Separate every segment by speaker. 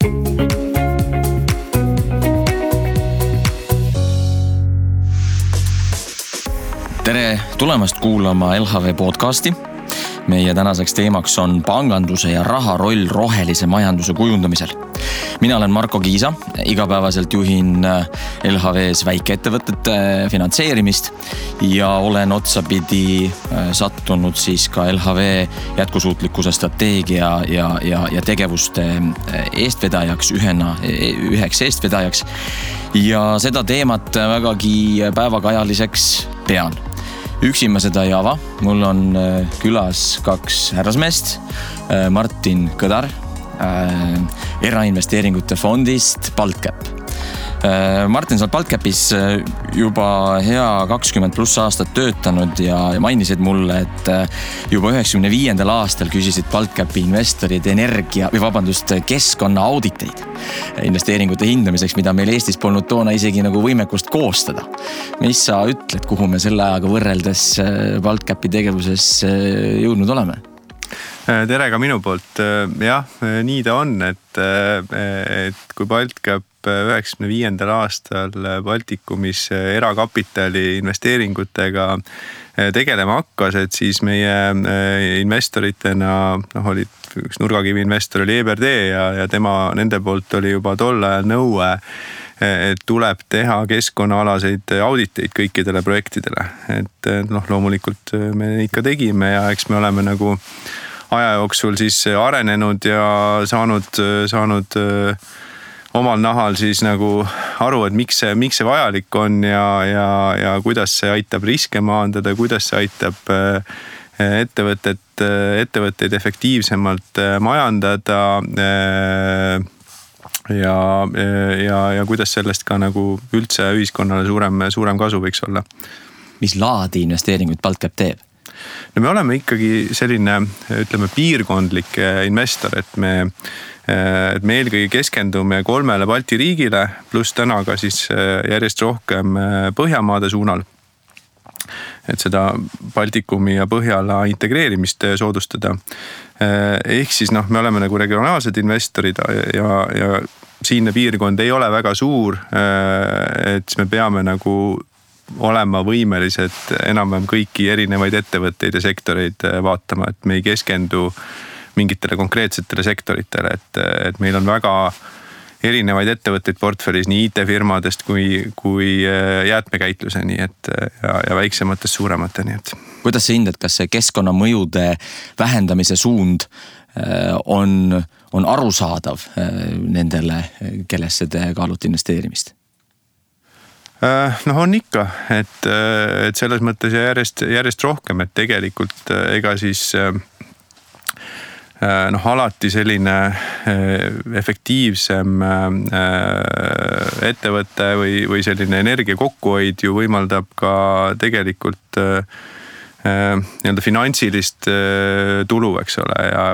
Speaker 1: Tere tulemast kuulama LHV podcasti. Meie tänaseks teemaks on panganduse ja raha roll rohelise majanduse kujundamisel. Mina olen Marko Kiisa, igapäevaselt juhin LHVs väikeettevõtete finantseerimist ja olen otsapidi sattunud siis ka LHV jätkusuutlikkuse strateegia ja tegevuste eestvedajaks, üheks eestvedajaks. Ja seda teemat vägagi päevakajaliseks pean. Üksi ma seda ei ava. Mul on külas kaks härrasmeest. Martin Kõdar erainvesteeringute fondist BaltCap. Martin, sa oled BaltCapis juba hea 20+ aastat töötanud ja mainisid mulle, et juba 95. aastal küsisid BaltCapi investorid keskkonna auditeid investeeringute hindamiseks, mida meil Eestis polnud toona isegi nagu võimekust koostada. Mis sa ütled, kuhu me selle ajaga võrreldes BaltCapi tegevuses jõudnud oleme?
Speaker 2: Tere ka minu poolt. Jah, nii ta on, et kui BaltCap 95. aastal Baltikumis erakapitali investeeringutega tegelema hakkas, et siis meie investoritena olid üks nurgakivi investor oli EBRD ja nende poolt oli juba tol ajal nõue, et tuleb teha keskkonnaalaseid auditeid kõikidele projektidele. Et loomulikult me ikka tegime ja eks me oleme nagu aja jooksul siis arenenud ja saanud omal nahal siis nagu aru, et miks see vajalik on ja kuidas see aitab riske maandada, kuidas see aitab ettevõtteid efektiivsemalt majandada ja kuidas sellest ka nagu üldse ühiskonnale suurem kasu võiks olla.
Speaker 1: Mis laadi investeeringuid BaltCap teeb?
Speaker 2: No me oleme ikkagi selline, ütleme, piirkondlik investor, et me eelkõige keskendume 3 Balti riigile, pluss täna ka siis järjest rohkem Põhjamaade suunal. Et seda Baltikumi ja Põhjala integreerimist soodustada. Ehk siis me oleme nagu regionaalsed investorid ja siinne piirkond ei ole väga suur, et me peame nagu olema võimelised enam-vähem kõiki erinevaid ettevõtteid ja sektoreid vaatama, et me ei keskendu mingitele konkreetsetele sektoritele, et meil on väga erinevaid ettevõtteid portfellis nii IT-firmadest kui jäätmekäitluseni ja väiksematest suuremateni.
Speaker 1: Kuidas sa hindad, kas see keskkonnamõjude vähendamise suund on arusaadav nendele, kellesse te kaalute investeerimist?
Speaker 2: On ikka, et selles mõttes järjest rohkem, et tegelikult ega siis alati selline efektiivsem ettevõte või selline energia kokkuhoid ju võimaldab ka tegelikult nii-öelda finantsilist tulu, eks ole, ja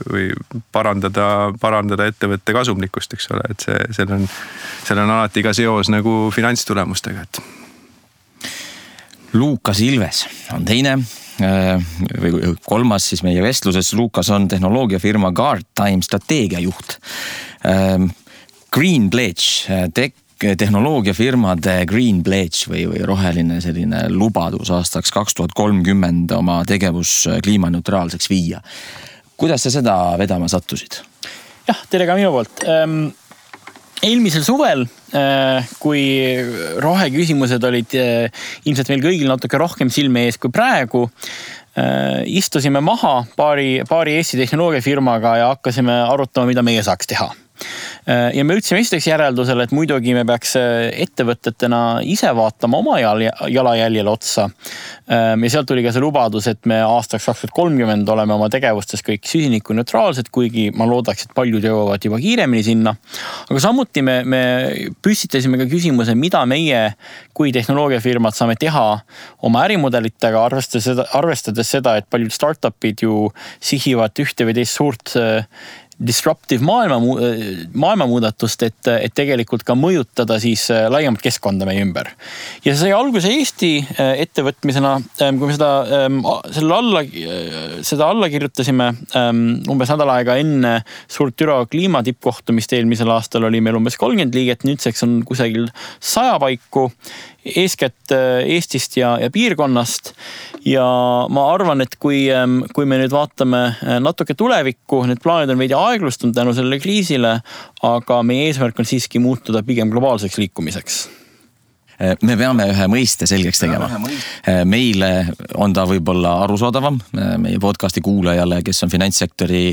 Speaker 2: või parandada ettevõtte kasumlikkust, eks ole, et seal on alati ka seos nagu finantstulemustega.
Speaker 1: Luukas Ilves on teine või kolmas siis meie vestluses. Luukas on tehnoloogiafirma Guardtime strateegiajuht. Green Pledge, tehnoloogiafirmade Green Pledge või roheline selline lubadus aastaks 2030 oma tegevus kliimaneutraalseks viia. Kuidas sa seda vedama sattusid?
Speaker 3: Jah, tere ka minu poolt. Eelmisel suvel, kui roheküsimused olid ilmselt meil kõigil natuke rohkem silme ees kui praegu, istusime maha paari Eesti tehnoloogiafirmaga ja hakkasime arutama, mida meie saaks teha. Ja me ütlesime esiteks järeldusele, et muidugi me peaks ettevõtetena ise vaatama oma jalajäljele otsa. Ja sealt tuli ka see lubadus, et me aastaks 2030 oleme oma tegevustes kõik süsinikuneutraalsed, kuigi ma loodaks, et paljud jõuavad juba kiiremini sinna. Aga samuti me püstitasime ka küsimuse, mida meie kui tehnoloogiafirmad saame teha oma ärimudelitega, arvestades seda, et paljud startupid ju sihivad ühte või teist suurt disruptive maailmamuudatust, et tegelikult ka mõjutada siis laiemat keskkonda meie ümber. Ja see sai alguse Eesti ettevõtmisena, kui me seda alla kirjutasime umbes nädal aega enne suurt Türo kliimatippkohtumist eelmisel aastal oli meil umbes 30 liiget, nüüdseks on kusagil 100 paiku, eeskätt Eestist ja piirkonnast. Ja ma arvan, et kui me nüüd vaatame natuke tulevikku, need plaanid on veidi aeglustunud tänu sellele kriisile, aga meie eesmärk on siiski muutuda pigem globaalseks liikumiseks.
Speaker 1: Me peame ühe mõiste selgeks tegema. Meile on ta võib-olla arusaadavam, meie podcasti kuulajale, kes on finantssektori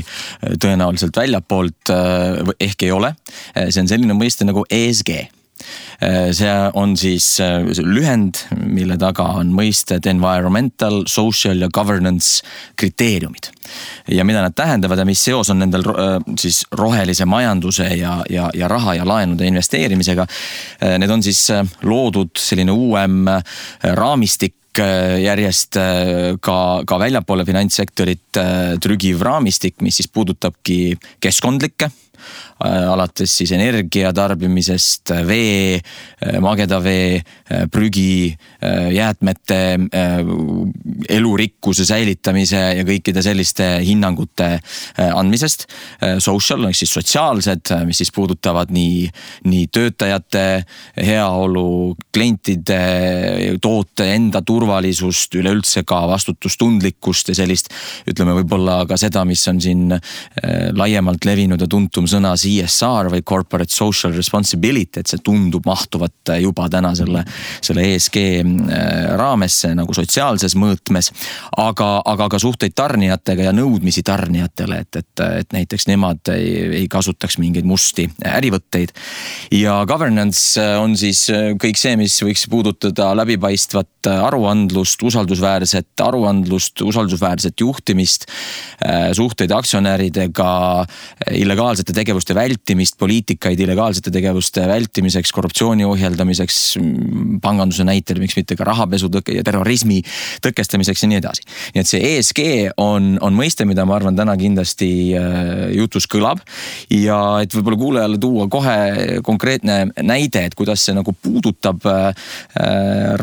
Speaker 1: tõenäoliselt väljapoolt, ehk ei ole. See on selline mõiste nagu ESG. See on siis lühend, mille taga on mõisted environmental, social ja governance kriteeriumid. Ja mida nad tähendavad ja mis seos on nendel siis rohelise majanduse ja raha ja laenude investeerimisega. Need on siis loodud selline uuem raamistik järjest ka väljapoole finantssektorit trügiv raamistik, mis siis puudutabki keskkondlikke, alates siis energia tarbimisest, vee, mageda vee, prügi, jäätmete, elurikkuse säilitamise ja kõikide selliste hinnangute andmisest. Social, siis sotsiaalsed, mis siis puudutavad nii töötajate heaolu, klientide, toote enda turvalisust, üleüldse ka vastutustundlikkust ja sellist, ütleme võib-olla ka seda, mis on siin laiemalt levinud ja tuntum sõna CSR või Corporate Social Responsibility, et see tundub mahtuvat juba täna selle ESG raamesse nagu sotsiaalses mõõtmes, aga ka suhteid tarnijatega ja nõudmisi tarnijatele, et näiteks nemad ei kasutaks mingeid musti ärivõtteid. Ja governance on siis kõik see, mis võiks puudutada läbipaistvat aruandlust, usaldusväärset juhtimist, suhteid aktsionäridega, illegaalsete tegevuste vältimist, poliitikaid illegaalsete tegevuste vältimiseks, korruptsiooni ohjeldamiseks, panganduse näitel, miks mitte ka rahapesu ja terrorismi tõkestamiseks ja nii edasi. Nii et see ESG on mõiste, mida ma arvan täna kindlasti jutus kõlab ja et võib-olla kuulajale tuua kohe konkreetne näide, et kuidas see nagu puudutab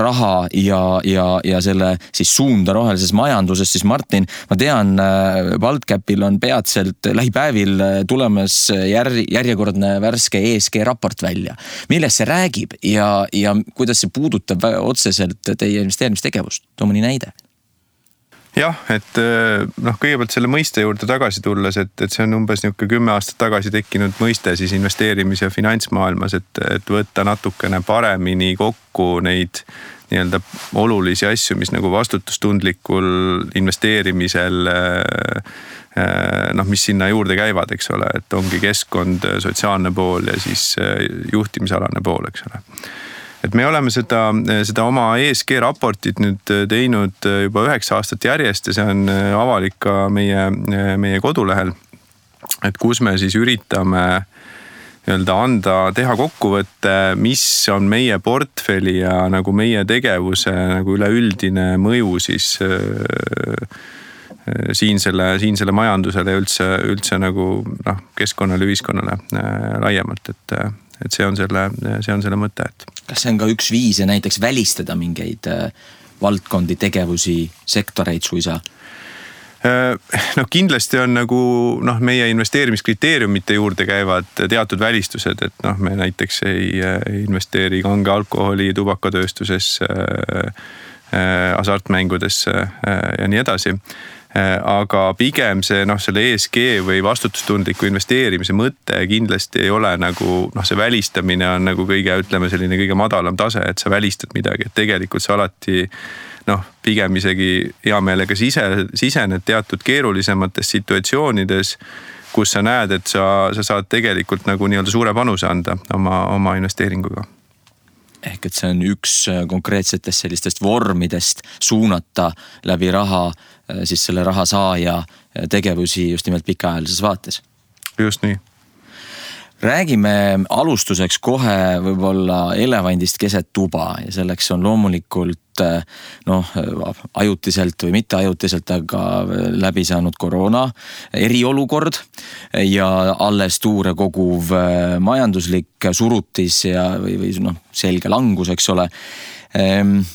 Speaker 1: raha ja selle siis suunda rohelises majanduses, siis Martin, ma tean, Baltcapil on peatselt lähipäevil tulemas järjekordne värske ESG raport välja. Millest see räägib ja kuidas see puudutab otseselt teie investeerimistegevust? Too mõni näide.
Speaker 2: Jah, et kõigepealt selle mõiste juurde tagasi tulles, et see on umbes 10 aastat tagasi tekkinud mõiste siis investeerimis- ja finantsmaailmas, et võtta natukene paremini kokku neid nii-öelda olulisi asju, mis nagu vastutustundlikul investeerimisel mis sinna juurde käivad, eks ole, et ongi keskkond, sotsiaalne pool ja siis juhtimisalane pool, eks ole. Et me oleme seda oma ESG raportit nüüd teinud juba 9 aastat järjest ja see on avalik ka meie kodulehel, et kus me siis üritame teha kokkuvõtte, mis on meie portfelli ja nagu meie tegevuse nagu üleüldine mõju siis siinsele majandusele ja üldse nagu keskkonnale, ühiskonnale laiemalt, et see on selle mõte.
Speaker 1: Kas see on ka üks viis ja näiteks välistada mingeid valdkondi, tegevusi, sektoreid suisa?
Speaker 2: Kindlasti on nagu meie investeerimiskriteeriumite juurde käivad teatud välistused, et me näiteks ei investeeri kange alkoholi, tubakatööstusesse, hasartmängudesse ja nii edasi. Aga pigem selle ESG või vastutustundliku investeerimise mõte kindlasti ei ole nagu, see välistamine on nagu kõige madalam tase, et sa välistad midagi, et tegelikult sa alati pigem isegi hea meelega sisened teatud keerulisemates situatsioonides, kus sa näed, et sa saad tegelikult nagu nii-öelda suure panuse anda oma investeeringuga.
Speaker 1: Ehk et see on üks konkreetsetest sellistest vormidest suunata läbi raha siis selle raha saaja tegevusi just nimelt pikaajalises vaates.
Speaker 2: Just nii.
Speaker 1: Räägime alustuseks kohe võib-olla elevandist keset tuba ja selleks on loomulikult ajutiselt või mitte ajutiselt, aga läbi saanud koroona eriolukord ja alles tuure koguv majanduslik surutis ja või selge langus, eks ole.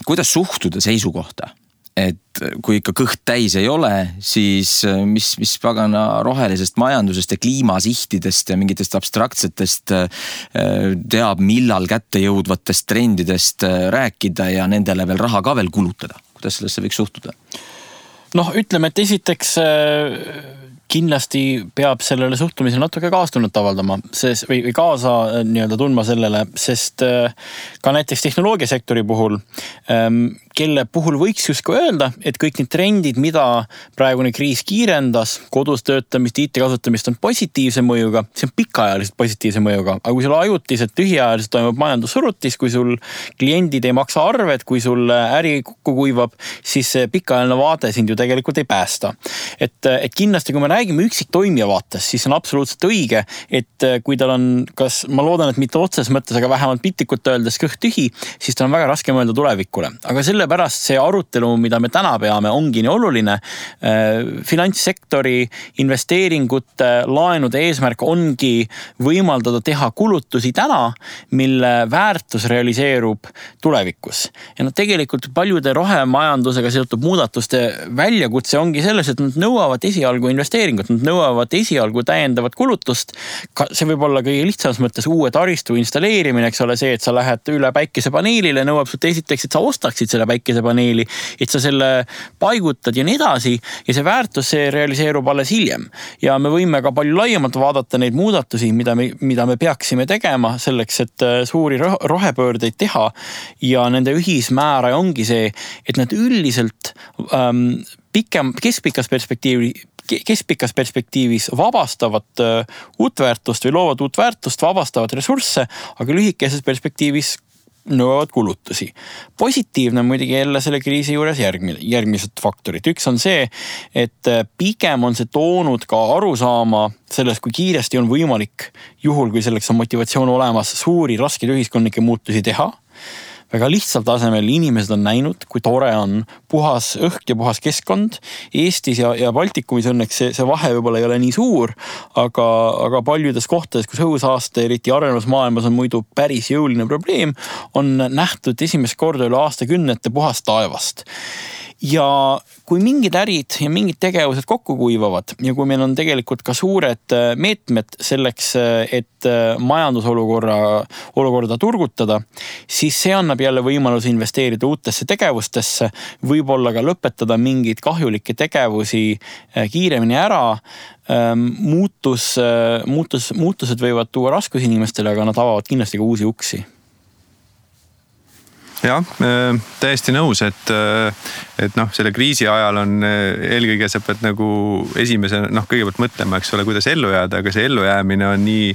Speaker 1: Kuidas suhtuda seisukohta? Et kui ikka kõht täis ei ole, siis mis pagana rohelisest majandusest ja kliimasihtidest ja mingitest abstraktsetest teab, millal kätte jõudvatest trendidest rääkida ja nendele veel raha ka veel kulutada? Kuidas sellesse võiks suhtuda?
Speaker 3: Ütleme, et esiteks kindlasti peab sellele suhtumisele natuke kaastunnet avaldama või kaasa tundma sellele, sest ka näiteks tehnoloogiasektori puhul, kelle puhul võiks justkui öelda, et kõik need trendid, mida praegune kriis kiirendas, kodus töötamist, IT kasutamist on positiivse mõjuga, see on pikaajaliselt positiivse mõjuga, aga kui sul ajutiselt tühiajaliselt toimub majandussurutis, kui sul kliendid ei maksa arved, kui sul äri kokku kuivab, siis see pikaajaline vaade sind ju tegelikult ei päästa. Et kindlasti, kui me räägime üksik toimija vaates, siis on absoluutselt õige, et kui tal on, ma loodan, et mitte otses mõttes, aga vähemalt piltlikult öeldes kõht tühi, siis tal on väga raske mõelda tulevikule. Aga sellepärast see arutelu, mida me täna peame, ongi nii oluline. Finantssektori investeeringute, laenude eesmärk ongi võimaldada teha kulutusi täna, mille väärtus realiseerub tulevikus. Ja tegelikult paljude rohemajandusega seotud muudatuste väljakutse ongi selles, et nad nõuavad esialgu investeeringut, nad nõuavad esialgu täiendavat kulutust. See võib olla kõige lihtsamas mõttes uue taristu installeerimine, eks ole, see, et sa lähed üle päikesepaneelile, nõuab sult esiteks, et sa ostaksid selle päikesepaneeli, et sa selle paigutad ja nii edasi ja see väärtus see realiseerub alles hiljem. Ja me võime ka palju laiemalt vaadata neid muudatusi, mida me peaksime tegema selleks, et suuri rohepöördeid teha ja nende ühismääraja ongi see, et nad üldiselt keskpikas perspektiivis vabastavad uut väärtust või loovad uut väärtust, vabastavad ressursse, aga lühikeses perspektiivis nõuavad kulutusi. Positiivne muidugi jälle selle kriisi juures järgmised faktorid. Üks on see, et pigem on see toonud ka arusaama sellest, kui kiiresti on võimalik juhul, kui selleks on motivatsioon olemas, suuri raskeid ühiskondlikke muutusi teha. Väga lihtsal tasemel inimesed on näinud, kui tore on puhas õhk ja puhas keskkond. Eestis ja Baltikumis õnneks see vahe võib-olla ei ole nii suur, aga paljudes kohtades, kus õhusaaste, eriti arenevas maailmas on muidu päris jõuline probleem, on nähtud esimest korda üle aastakümnete puhast taevast. Ja kui mingid ärid ja mingid tegevused kokku kuivavad ja kui meil on tegelikult ka suured meetmed selleks, et majandusolukorda turgutada, siis see annab jälle võimalus investeerida uutesse tegevustesse, võib-olla ka lõpetada mingeid kahjulikke tegevusi kiiremini ära. Muutused võivad tuua raskusi inimestele, aga nad avavad kindlasti ka uusi uksi.
Speaker 2: Jah, täiesti nõus, et selle kriisi ajal on eelkõige sa pead nagu esimese, kõigepealt mõtlema, eks ole, kuidas ellu jääda, aga see ellujäämine on nii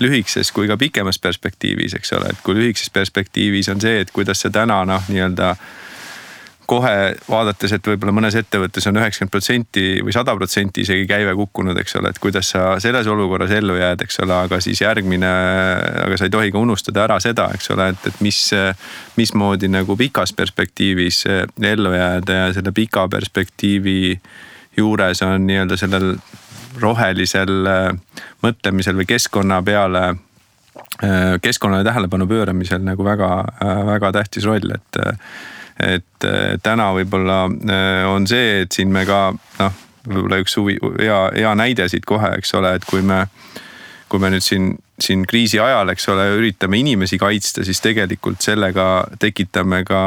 Speaker 2: lühikeses kui ka pikemas perspektiivis, eks ole, et kui lühikeses perspektiivis on see, et kuidas see täna kohe vaadates, et võib-olla mõnes ettevõttes on 90% või 100% isegi käive kukkunud, eks ole, et kuidas sa selles olukorras ellu jääd, eks ole, aga siis aga sa ei tohi ka unustada ära seda, eks ole, et mismoodi nagu pikas perspektiivis ellu jääda ja selle pika perspektiivi juures on sellel rohelisel mõtlemisel või keskkonnale tähelepanu pööramisel nagu väga, väga tähtis roll, et täna võib-olla on see, et siin me ka, võib-olla üks hea näide siit kohe, eks ole, et kui me nüüd siin kriisi ajal, eks ole, üritame inimesi kaitsta, siis tegelikult sellega tekitame ka,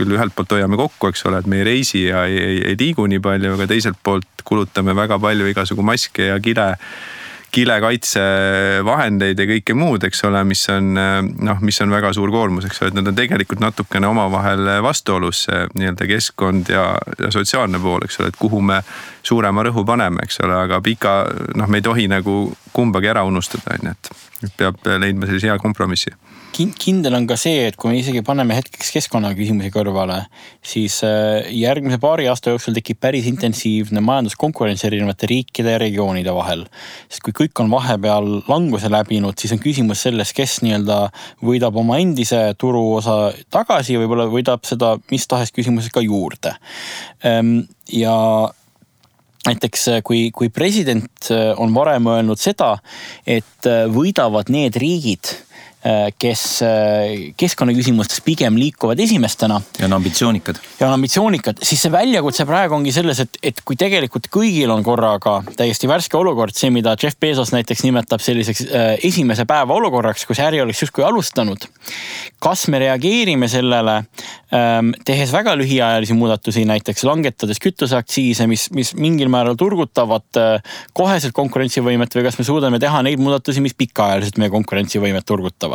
Speaker 2: küll ühelt poolt hoiame kokku, eks ole, et me ei reisi ja ei liigu nii palju, aga teiselt poolt kulutame väga palju igasugu maske ja kilekaitsevahendeid ja kõike muud, eks ole, mis on väga suur koormus, eks ole, et nad on tegelikult natukene omavahel vastuolus nii-öelda keskkond ja sotsiaalne pool, eks ole, et kuhu me suurema rõhu paneme, eks ole, aga me ei tohi nagu kumbagi ära unustada, et peab leidma sellise hea kompromissi.
Speaker 3: Kindel on ka see, et kui me isegi paneme hetkeks keskkonnaküsimusi kõrvale, siis järgmise paari aasta jooksul tekib päris intensiivne majanduskonkurents erinevate riikide ja regioonide vahel. Sest kui kõik on vahepeal languse läbinud, siis on küsimus selles, kes nii-öelda võidab oma endise turuosa tagasi ja võib-olla võidab seda mis tahes küsimuses ka juurde. Ja näiteks kui president on varem öelnud seda, et võidavad need riigid, kes keskkonnaküsimustes pigem liikuvad esimestena.
Speaker 1: Ja on ambitsioonikad.
Speaker 3: Siis see väljakutse praegu ongi selles, et kui tegelikult kõigil on korraga täiesti värske olukord, see mida Jeff Bezos näiteks nimetab selliseks esimese päeva olukorraks, kus äri oleks justkui alustanud. Kas me reageerime sellele, tehes väga lühiajalisi muudatusi, näiteks langetades kütuseaktsiise, mis mingil määral turgutavad koheselt konkurentsivõimet või kas me suudame teha neid muudatusi, mis pikaajaliselt meie konkurentsivõimet turgutavad.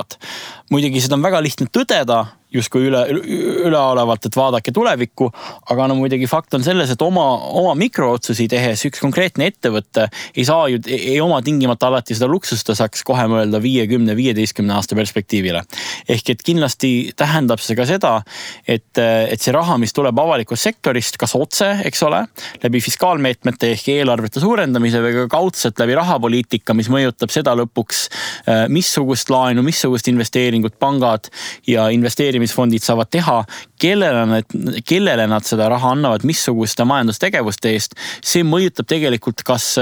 Speaker 3: Muidugi seda on väga lihtne tõdeda, justkui üleolevalt, et vaadake tulevikku, aga muidugi fakt on selles, et oma mikrootsusi tehes üks konkreetne ettevõtte ei oma tingimata alati seda luksust, ta saaks kohe mõelda 50-15 aasta perspektiivile. Ehk et kindlasti tähendab see ka seda, et see raha, mis tuleb avalikust sektorist, kas otse, eks ole, läbi fiskaalmeetmete ehk eelarvete suurendamise või ka kaudselt läbi rahapoliitika, mis mõjutab seda lõpuks, missugust laenu, missugust investeeringut pangad ja investeerimisfondid saavad teha, kellele nad seda raha annavad, missuguste majandustegevuste eest. See mõjutab tegelikult kas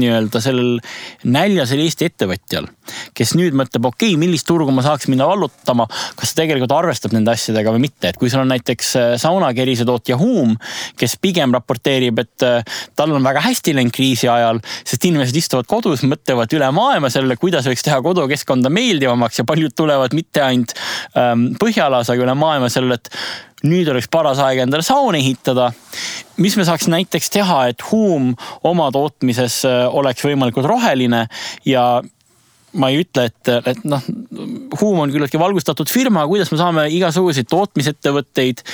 Speaker 3: nii-öelda sellel näljasel Eesti ettevõtjal, kes nüüd mõtleb, millist turgu ma saaks minna vallutama, kas tegelikult arvestab nende asjadega või mitte. Et kui sul on näiteks saunakerise tootja Huum, kes pigem raporteerib, et tal on väga hästi läinud kriisi ajal, sest inimesed istuvad kodus, mõtlevad üle maailma sellele, kuidas võiks teha kodukeskkonda meeldivamaks ja paljud tulevad mitte ainult Põhjalas, aga üle maailma sellele, et nüüd oleks paras aeg endale saun ehitada. Mis me saaks näiteks teha, et Huum oma tootmises oleks võimalikult roheline ja ma ei ütle, et Huum on küllaltki valgustatud firma, kuidas me saame igasuguseid tootmisettevõtteid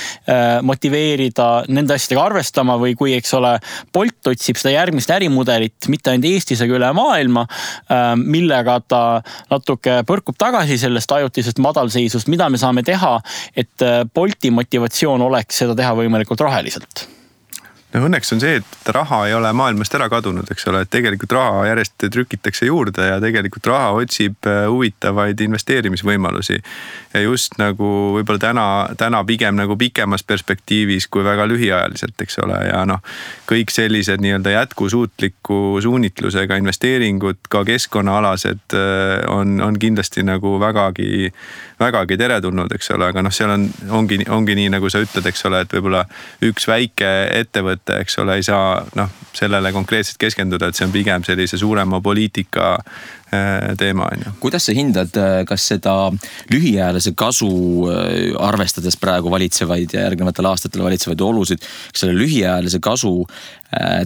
Speaker 3: motiveerida nende asjadega arvestama või kui, eks ole, Bolt otsib seda järgmist ärimudelit mitte ainult Eestis, aga üle maailma, millega ta natuke põrkub tagasi sellest ajutisest madalseisust, mida me saame teha, et Bolti motivatsioon oleks seda teha võimalikult roheliselt.
Speaker 2: No õnneks on see, et raha ei ole maailmast ära kadunud, eks ole, et tegelikult raha järjest trükitakse juurde ja tegelikult raha otsib huvitavaid investeerimisvõimalusi. Ja just nagu võib-olla täna pigem nagu pikemas perspektiivis kui väga lühiajaliselt, eks ole. Ja kõik sellised nii-öelda jätkusuutliku suunitlusega investeeringud, ka keskkonnaalased on kindlasti nagu vägagi teretulnud, eks ole. Aga seal ongi nii, nagu sa ütled, eks ole, et võib-olla üks väike ettevõte, eks ole, ei saa sellele konkreetselt keskenduda, et see on pigem sellise suurema poliitika teema.
Speaker 1: Kuidas sa hindad, kas seda lühiajalise kasu arvestades praegu valitsevaid ja järgnevatel aastatel valitsevaid olusid, kas selle lühiajalise kasu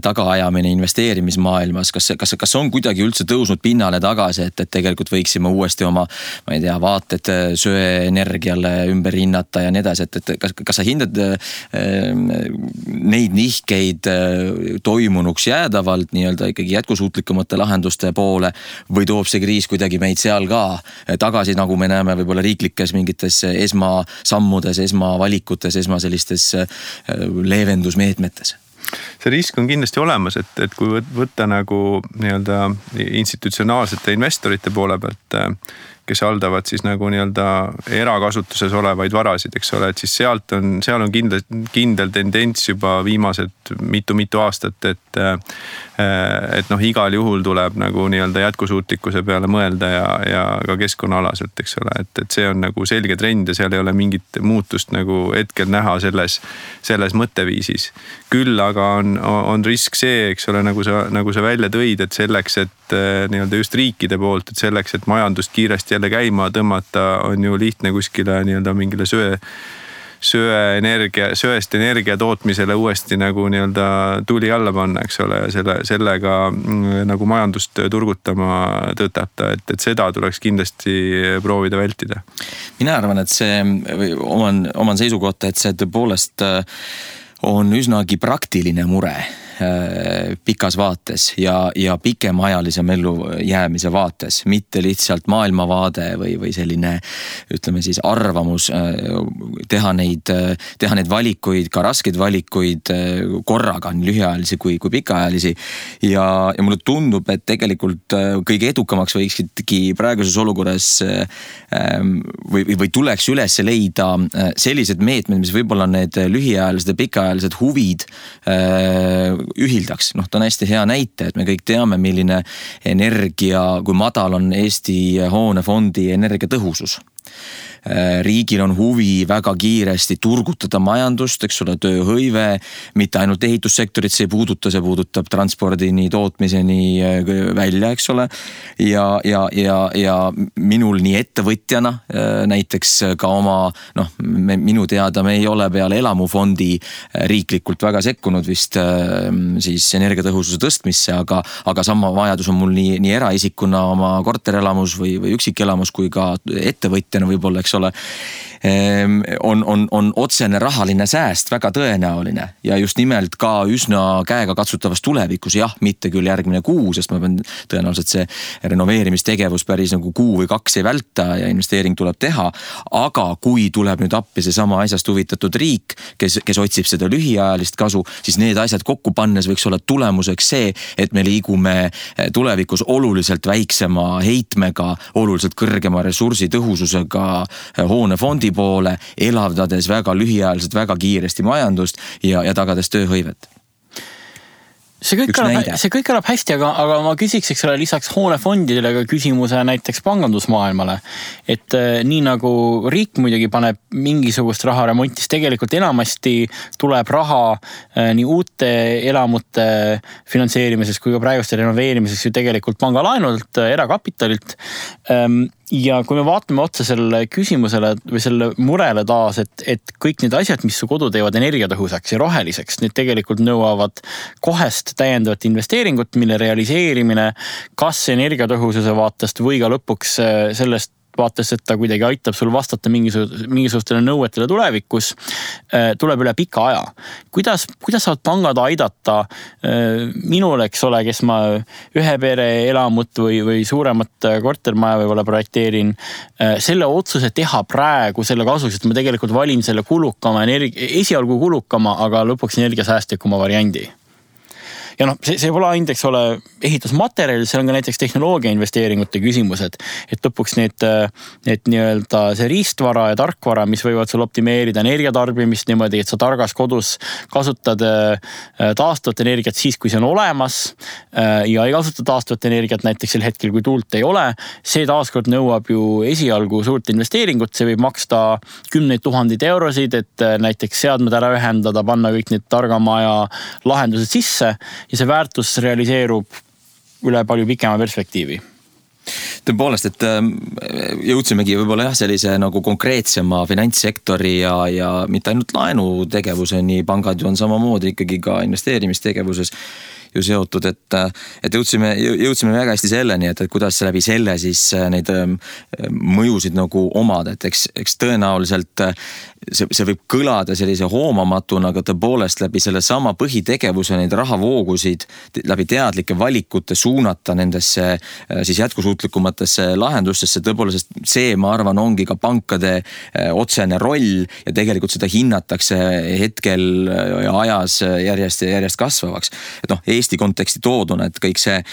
Speaker 1: tagaajamine investeerimismaailmas, kas on kuidagi üldse tõusnud pinnale tagasi, et tegelikult võiksime uuesti oma, ma ei tea, vaated söeenergiale ümber hinnata ja nii edasi, et kas sa hindad neid nihkeid toimunuks jäädavalt nii-öelda ikkagi jätkusuutlikumate lahenduste poole või toob see kriis kuidagi meid seal ka tagasi, nagu me näeme võib-olla riiklikes mingites esmasammudes, esmavalikutes, sellistes leevendusmeetmetes?
Speaker 2: See risk on kindlasti olemas, et kui võtta nagu nii-öelda institutsionaalsete investorite poole pealt, kes haldavad siis nagu nii-öelda erakasutuses olevaid varasid, eks ole, et siis seal on kindel tendents juba viimased mitu aastat, et igal juhul tuleb nagu nii-öelda jätkusuutlikkuse peale mõelda ja ka keskkonnaalaselt, eks ole, et see on nagu selge trend ja seal ei ole mingit muutust nagu hetkel näha selles mõtteviisis. Küll aga on risk see, eks ole, nagu sa välja tõid, et selleks, et nii-öelda just riikide poolt, et selleks, et majandust kiiresti jälle käima tõmmata, on ju lihtne kuskile nii-öelda mingile söest energia tootmisele uuesti nagu nii-öelda tuli alla panna, eks ole, ja sellega nagu majandust turgutama tõtata, et seda tuleks kindlasti proovida vältida.
Speaker 1: Mina arvan, et see oman seisukohta, et see tõepoolest on üsnagi praktiline mure, pikas vaates ja pikemaajalisem ellujäämise vaates, mitte lihtsalt maailmavaade või selline, ütleme siis arvamus, teha neid valikuid, ka raskeid valikuid korraga, nii lühiajalisi kui pikaajalisi. Ja mulle tundub, et tegelikult kõige edukamaks võiksidki praeguses olukorras või tuleks üles leida sellised meetmed, mis võib-olla need lühiajalised ja pikaajalised huvid ühildaks. Ta on hästi hea näite, et me kõik teame, milline energia, kui madal on Eesti hoonefondi energiatõhusus. Riigil on huvi väga kiiresti turgutada majandust, eks ole, tööhõive, mitte ainult ehitussektorit see puudutab transpordini, tootmiseni välja, eks ole. Ja minul nii ettevõtjana näiteks ka oma, minu teada me ei ole peale elamufondi riiklikult väga sekkunud vist siis energiatõhususe tõstmisse, aga sama vajadus on mul nii eraisikuna oma korterelamus või üksikelamus kui ka ettevõtjana võib-olla, eks ole, on otsene rahaline sääst väga tõenäoline ja just nimelt ka üsna käega katsutavas tulevikus, jah, mitte küll järgmine kuu, sest ma pean tõenäoliselt see renoveerimistegevus päris nagu kuu või 2 ei välta ja investeering tuleb teha, aga kui tuleb nüüd appi see sama asjast huvitatud riik, kes otsib seda lühiajalist kasu, siis need asjad kokku pannes võiks olla tulemuseks see, et me liigume tulevikus oluliselt väiksema heitmega, oluliselt kõrgema ressursitõhususega hoonefondi poole, elavdades väga lühiajaliselt, väga kiiresti majandust ja tagades tööhõivet.
Speaker 3: See kõik kõlab hästi, aga ma küsiks, eks ole, lisaks hoonefondidele ka küsimuse näiteks pangandusmaailmale. Et nii nagu riik muidugi paneb mingisugust raha remontis, tegelikult enamasti tuleb raha nii uute elamute finantseerimises kui ka praeguste renoveerimiseks ju tegelikult pangalaenult, erakapitalilt. Ja kui me vaatame otsa selle küsimusele või selle murele taas, et kõik need asjad, mis su kodu teevad energiatõhusaks ja roheliseks, need tegelikult nõuavad kohest täiendavat investeeringut, mille realiseerimine kas energiatõhususe vaatest või ka lõpuks sellest vaates, et ta kuidagi aitab sul vastata mingisugustele nõuetele tulevikus, tuleb üle pika aja. Kuidas saavad pangad aidata minul, eks ole, kes ma ühe pere elamut või suuremat kortermaja võib-olla projekteerin, selle otsuse teha praegu selle kasuks, et ma tegelikult valin selle esialgu kulukama, aga lõpuks energiasäästlikuma variandi. Ja see pole ainult, eks ole, ehitusmaterjal, see on ka näiteks tehnoloogia investeeringute küsimused, et lõpuks need nii-öelda see riistvara ja tarkvara, mis võivad sul optimeerida energiatarbimist niimoodi, et sa targas kodus kasutad taastuvat energiat siis, kui see on olemas ja ei kasuta taastuvat energiat näiteks sel hetkel, kui tuult ei ole. See taaskord nõuab ju esialgu suurt investeeringut, see võib maksta 10 000 eurosid, et näiteks seadmed ära ühendada, panna kõik need targamaja lahendused sisse ja see väärtus realiseerub üle palju pikema perspektiivi.
Speaker 1: Tõepoolest, et jõudsimegi võib-olla sellise nagu konkreetsema finantssektori ja mitte ainult laenutegevuseni, pangad ju on samamoodi ikkagi ka investeerimistegevuses ju seotud, et jõudsime väga hästi selleni, et kuidas läbi selle siis neid mõjusid nagu omada, et eks tõenäoliselt see võib kõlada sellise hoomamatuna, aga tõepoolest läbi selle sama põhitegevuse neid rahavoogusid läbi teadlike valikute suunata nendesse siis jätkusuutlikumatesse lahendustesse, tõepoolest see, ma arvan, ongi ka pankade otsene roll ja tegelikult seda hinnatakse hetkel ja ajas järjest kasvavaks. Et Eesti konteksti tooduna, et kõik see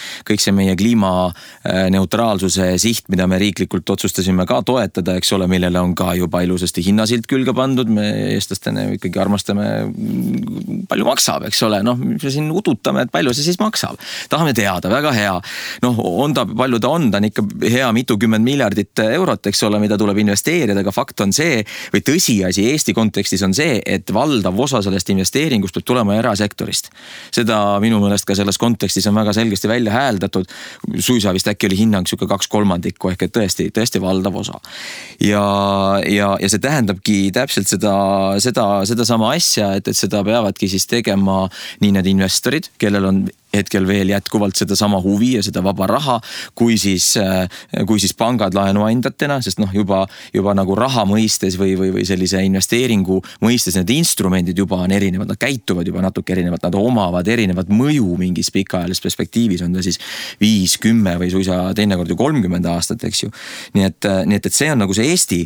Speaker 1: meie kliimaneutraalsuse siht, mida me riiklikult otsustasime ka toetada, eks ole, millele on ka juba ilusasti hinnasilt külge pandud, me eestlastena ikkagi armastame, palju maksab, eks ole, me siin udutame, et palju see siis maksab. Tahame teada, väga hea. Palju ta on ikka hea mitukümmend miljardit eurot, eks ole, mida tuleb investeerida, aga fakt on see, või tõsiasi Eesti kontekstis on see, et valdav osa sellest investeeringust peab tulema erasektorist. Seda minu mõelest ka selles kontekstis on väga selgesti välja hääldatud, suisa vist äkki oli hinnang siuke 2/3 ehk et tõesti valdav osa. Ja see tähendabki täpselt seda sama asja, et seda peavadki siis tegema nii need investorid, kellel on hetkel veel jätkuvalt seda sama huvi ja seda vaba raha, kui siis pangad laenuandjatena, sest juba nagu raha mõistes või sellise investeeringu mõistes need instrumendid juba on erinevad, nad käituvad juba natuke erinevad, nad omavad erinevat mõju mingis pikaajalises perspektiivis, on ta siis 5, 10 või suisa teinekord ju 30 aastat, eks ju. Nii et see on nagu see Eesti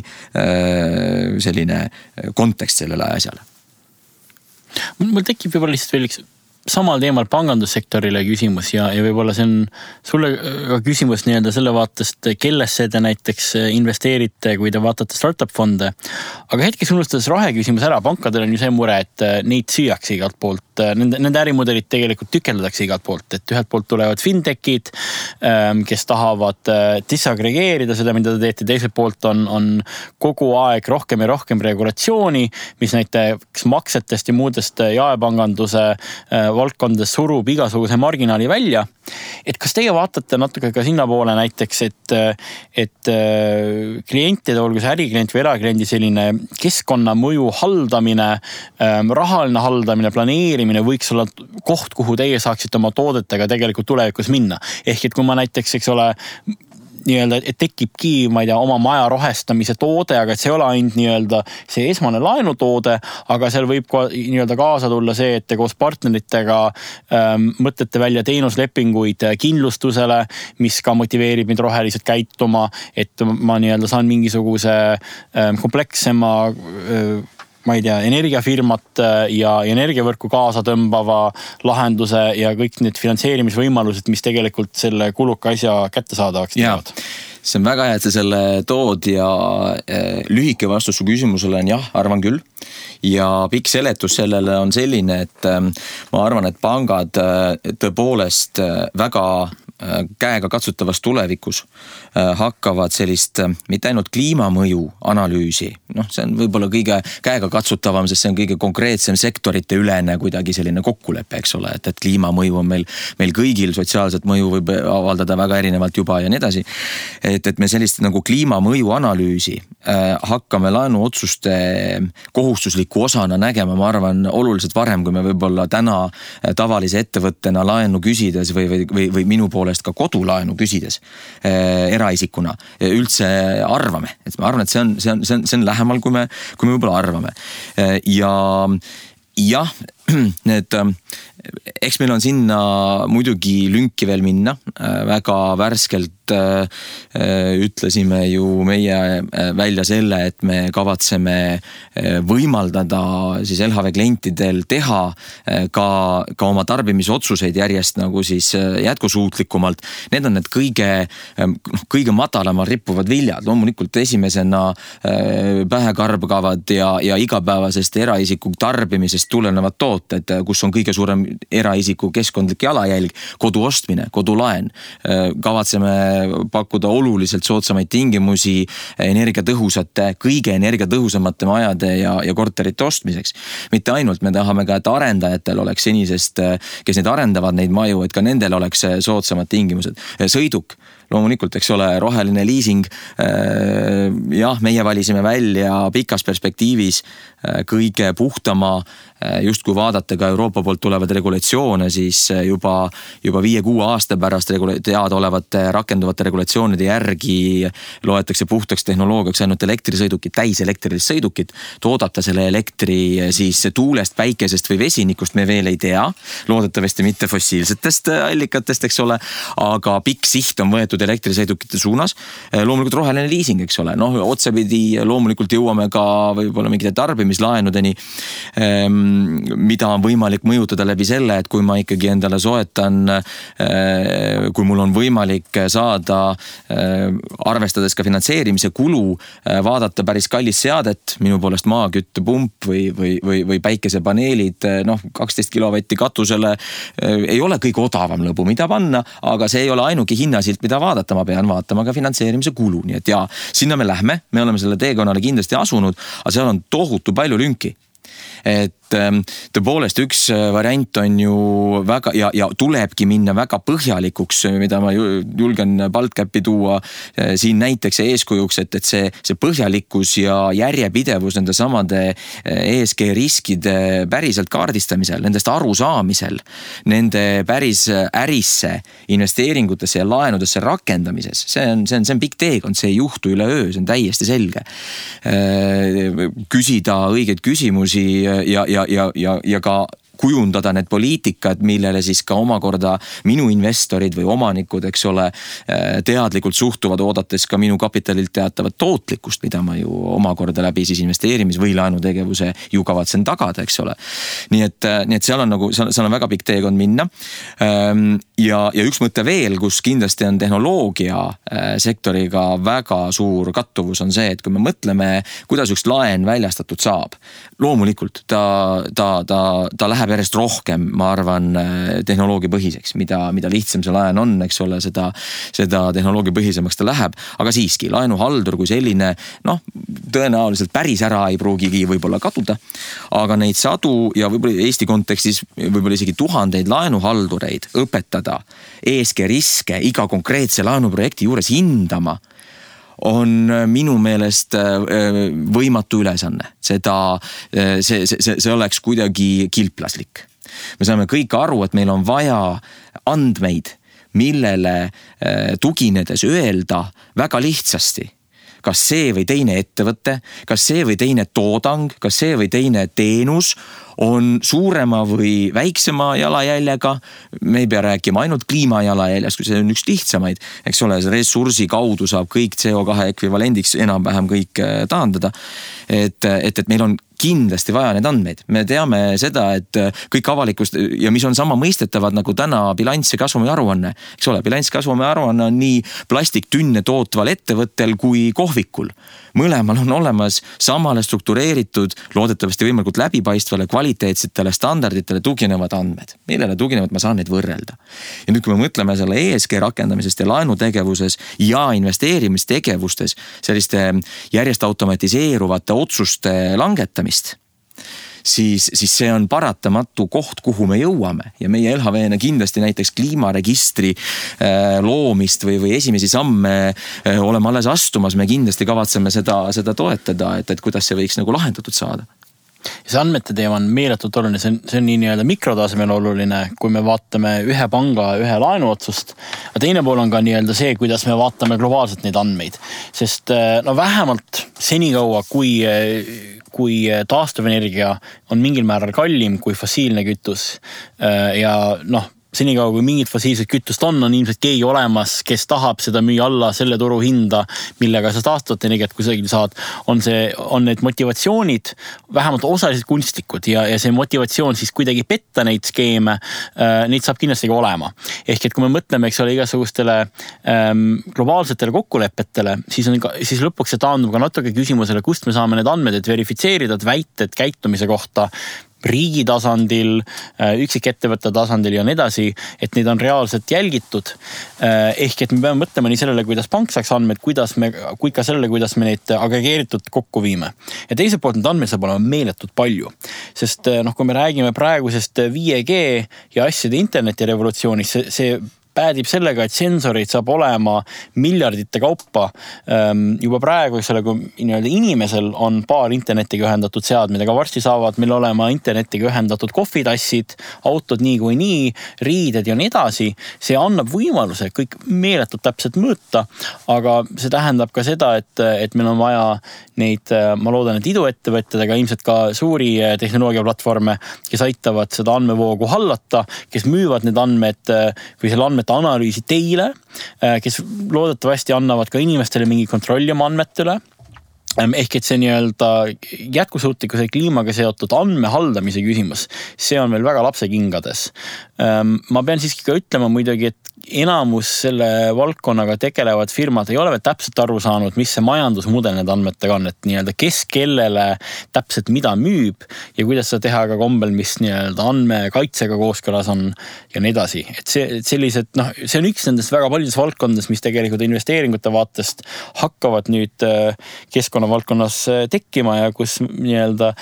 Speaker 1: selline kontekst sellele asjale.
Speaker 3: Mul tekib võib-olla lihtsalt veel üks samal teemal pangandussektorile küsimus ja võib-olla see on sulle ka küsimus nii-öelda selle vaatest, kellesse te näiteks investeerite, kui te vaatate startup fonde. Aga hetkes unustades rahe küsimus ära, pankadel on ju see mure, et neid süüakse igalt poolt. Nende ärimudelit tegelikult tükeldatakse igalt poolt, et ühelt poolt tulevad fintechid, kes tahavad disaggregeerida seda, mida te teete, teiselt poolt on kogu aeg rohkem ja rohkem regulatsiooni, mis näiteks maksetest ja muudest jaepanganduse valdkondades surub igasuguse marginaali välja. Et kas teie vaatate natuke ka sinna poole näiteks, et klientide, olgu see äriklient või erakliendi selline keskkonnamõju haldamine, rahaline haldamine, planeerimine võiks olla koht, kuhu teie saaksite oma toodetega tegelikult tulevikus minna. Ehk et kui ma näiteks, eks ole, nii-öelda, et tekibki, ma ei tea, oma maja rohestamise toode, aga et see ei ole ainult nii-öelda see esmane laenutoode, aga seal võib nii-öelda kaasa tulla see, et te koos partneritega mõtlete välja teenuslepinguid kindlustusele, mis ka motiveerib mind roheliselt käituma, et ma nii-öelda saan mingisuguse komplekssema ma ei tea, energiafirmat ja energiavõrku kaasa tõmbava lahenduse ja kõik need finantseerimisvõimalused, mis tegelikult selle kuluka asja kättesaadavaks teevad.
Speaker 1: See on väga hea, et sa selle tood ja lühike vastus su küsimusele on jah, arvan küll. Ja pikk seletus sellele on selline, et ma arvan, et pangad tõepoolest väga käega katsutavas tulevikus hakkavad sellist mitte ainult kliimamõju analüüsi, see on võib-olla kõige käega katsutavam, sest see on kõige konkreetsem sektorite ülene kuidagi selline kokkulepe, eks ole, et kliimamõju on meil kõigil, sotsiaalset mõju võib avaldada väga erinevalt juba ja nii edasi. Et me sellist nagu kliimamõju analüüsi hakkame laenuotsuste kohustusliku osana nägema, ma arvan, oluliselt varem, kui me võib-olla täna tavalise ettevõttena laenu küsides või minu poolest ka kodulaenu küsides eraisikuna üldse arvame. Et ma arvan, et see on lähemal, kui me võib-olla arvame. Ja jah, eks meil on sinna muidugi lünki veel minna. Väga värskelt ütlesime ju meie välja selle, et me kavatseme võimaldada siis LHV klientidel teha ka oma tarbimisotsuseid järjest nagu siis jätkusuutlikumalt. Need on need kõige madalamal rippuvad viljad. Loomulikult esimesena pähe karbgavad ja igapäevasest eraisiku tarbimisest tulenevad tooted, kus on kõige suurem eraisiku keskkondlik jalajälg, kodu ostmine, kodulaen. Kavatseme pakkuda oluliselt soodsamaid tingimusi energiatõhusate, kõige energiatõhusamate majade ja korterite ostmiseks. Mitte ainult, me tahame ka, et arendajatel oleks senisest, kes neid arendavad neid maju, et ka nendel oleks soodsamad tingimused. Sõiduk, loomulikult, eks ole, roheline liising. Jah, meie valisime välja pikas perspektiivis kõige puhtama, just kui vaadata ka Euroopa poolt tulevad regulatsioone, siis juba 5-6 aasta pärast teada olevate rakenduvate regulatsioonide järgi loetakse puhtaks tehnoloogiaks ainult elektrisõidukid, täiselektrilised sõidukid. Toodata selle elektri siis tuulest, päikesest või vesinikust me veel ei tea. Loodetavasti mitte fossiilsetest allikatest, eks ole, aga pikk siht on võetud elektrisõidukite suunas. Loomulikult roheline liising, eks ole. Otsapidi loomulikult jõuame ka võib-olla mingite tarbimislaenudeni, mida on võimalik mõjutada läbi selle, et kui ma ikkagi endale soetan, kui mul on võimalik saada, arvestades ka finantseerimise kulu, vaadata päris kallis seadet, minu poolest maaküttepump või päikesepaneelid, 12 kilovatti katusele, ei ole kõige odavam lõbu, mida panna, aga see ei ole ainuke hinnasilt, mida vaadata, ma pean vaatama ka finantseerimise kulu, nii et sinna me lähme, me oleme selle teekonnale kindlasti asunud, aga seal on tohutu palju lünki. et tõepoolest üks variant on ju väga ja tulebki minna väga põhjalikuks, mida ma julgen BaltCapi tuua siin näiteks eeskujuks, et see põhjalikkus ja järjepidevus nende samade ESG riskide päriselt kaardistamisel, nendest arusaamisel, nende päris ärisse, investeeringutesse ja laenudesse rakendamises. See on pikk teekond, see ei juhtu üleöö, see on täiesti selge. Küsida õigeid küsimusi ja ka kujundada need poliitikad, millele siis ka omakorda minu investorid või omanikud, eks ole, teadlikult suhtuvad, oodates ka minu kapitalilt teatavat tootlikkust, mida ma ju omakorda läbi siis investeerimis- või laenutegevuse ju kavatsen tagada, eks ole. Nii et seal on väga pikk teekond minna. Ja üks mõte veel, kus kindlasti on tehnoloogia sektoriga väga suur kattuvus, on see, et kui me mõtleme, kuidas üks laen väljastatud saab, loomulikult ta läheb järjest rohkem, ma arvan, tehnoloogia põhiseks, mida lihtsam see laen on, eks ole, seda tehnoloogia põhisemaks ta läheb, aga siiski laenuhaldur kui selline, tõenäoliselt päris ära ei pruugigi võib-olla kaduda, aga neid sadu ja võib-olla Eesti kontekstis võib-olla isegi tuhandeid laenuhaldureid õpetada ESG riske iga konkreetse laenuprojekti juures hindama on minu meelest võimatu ülesanne. See oleks kuidagi kilplaslik. Me saame kõik aru, et meil on vaja andmeid, millele tuginedes öelda väga lihtsasti, kas see või teine ettevõte, kas see või teine toodang, kas see või teine teenus on suurema või väiksema jalajäljega. Me ei pea rääkima ainult kliimajalajäljast, kui see on üks lihtsamaid, eks ole, ressursi kaudu saab kõik CO2 ekvivalendiks enam-vähem kõik taandada. Et meil on kindlasti vaja need andmeid. Me teame seda, et kõik avalikust ja mis on sama mõistetavad nagu täna bilanss ja kasvumi aruanne. Eks ole, bilanss kasvumi aruanne on nii plastiktünne tootval ettevõttel kui kohvikul. Mõlemal on olemas samale struktureeritud, loodetavasti võimalikult läbipaistvale, kvaliteetsetele standarditele tuginevad andmed. Millele tuginevad, ma saan neid võrrelda. Ja nüüd, kui me mõtleme selle ESG rakendamisest ja laenutegevuses ja investeerimistegevustes, selliste järjest automatiseeruvate otsuste langetamist, siis see on paratamatu koht, kuhu me jõuame. Ja meie LHV-na kindlasti näiteks kliimaregistri loomist või esimesi samme oleme alles astumas. Me kindlasti kavatseme seda toetada, et kuidas see võiks nagu lahendatud saada.
Speaker 3: See andmete teema on meeletult oluline, see on nii nii-öelda mikrotasemel oluline, kui me vaatame ühe panga, ühe laenuotsust. Ja teine pool on ka nii-öelda see, kuidas me vaatame globaalselt neid andmeid. Sest vähemalt senikaua, kui taastuvenergia on mingil määral kallim kui fossiilne kütus ja senikaua kui mingit fossiilset kütust on ilmselt keegi olemas, kes tahab seda müüa alla selle turu hinda, millega sa taastuvat energiat kusagil saad, on need motivatsioonid vähemalt osaliselt kunstlikud ja see motivatsioon siis kuidagi petta neid skeeme, neid saab kindlasti ka olema. Ehk et kui me mõtleme, eks ole, igasugustele globaalsetele kokkulepetele, siis lõpuks see taandub ka natuke küsimusele, kust me saame need andmed, et verifitseerida väited käitumise kohta riigi tasandil, üksikettevõtte tasandil ja nii edasi, et neid on reaalselt jälgitud. Ehk et me peame mõtlema nii sellele, kuidas pank saaks andmed, kui ka sellele, kuidas me neid agregeeritud kokku viime. Ja teiselt poolt need andmed saab olema meeletult palju. Sest kui me räägime praegusest 5G ja asjade interneti revolutsioonist, see päädib sellega, et sensoreid saab olema miljardite kaupa. Juba praegu, kui inimesel on paar internetiga ühendatud seadmed, aga varsti saavad meil olema internetiga ühendatud kohvitassid, autod nii, riided ja nii edasi. See annab võimaluse kõik meeletult täpselt mõõta, aga see tähendab ka seda, et meil on vaja neid, ma loodan, et iduettevõtted, aga ilmselt ka suuri tehnoloogiaplatvorme, kes aitavad seda andmevoogu hallata, kes müüvad need andmed või selle andmete analüüsi teile, kes loodetavasti annavad ka inimestele mingi kontrolli oma andmetele. Ehk et see nii-öelda jätkusuutlikkuse kliimaga seotud andmehaldamise küsimus, see on veel väga lapsekingades. Ma pean siiski ka ütlema muidugi, et enamus selle valdkonnaga tegelevad firmad ei ole veel täpselt aru saanud, mis see majandusmudel need andmetega on, et nii-öelda kes kellele täpselt mida müüb ja kuidas seda teha ka kombel, mis nii-öelda andmekaitsega kooskõlas on ja nii edasi. Et sellised, see on üks nendest väga paljudes valdkondades, mis tegelikult investeeringute vaatest hakkavad nüüd keskkonna valdkonnas tekkima ja kus nii-öelda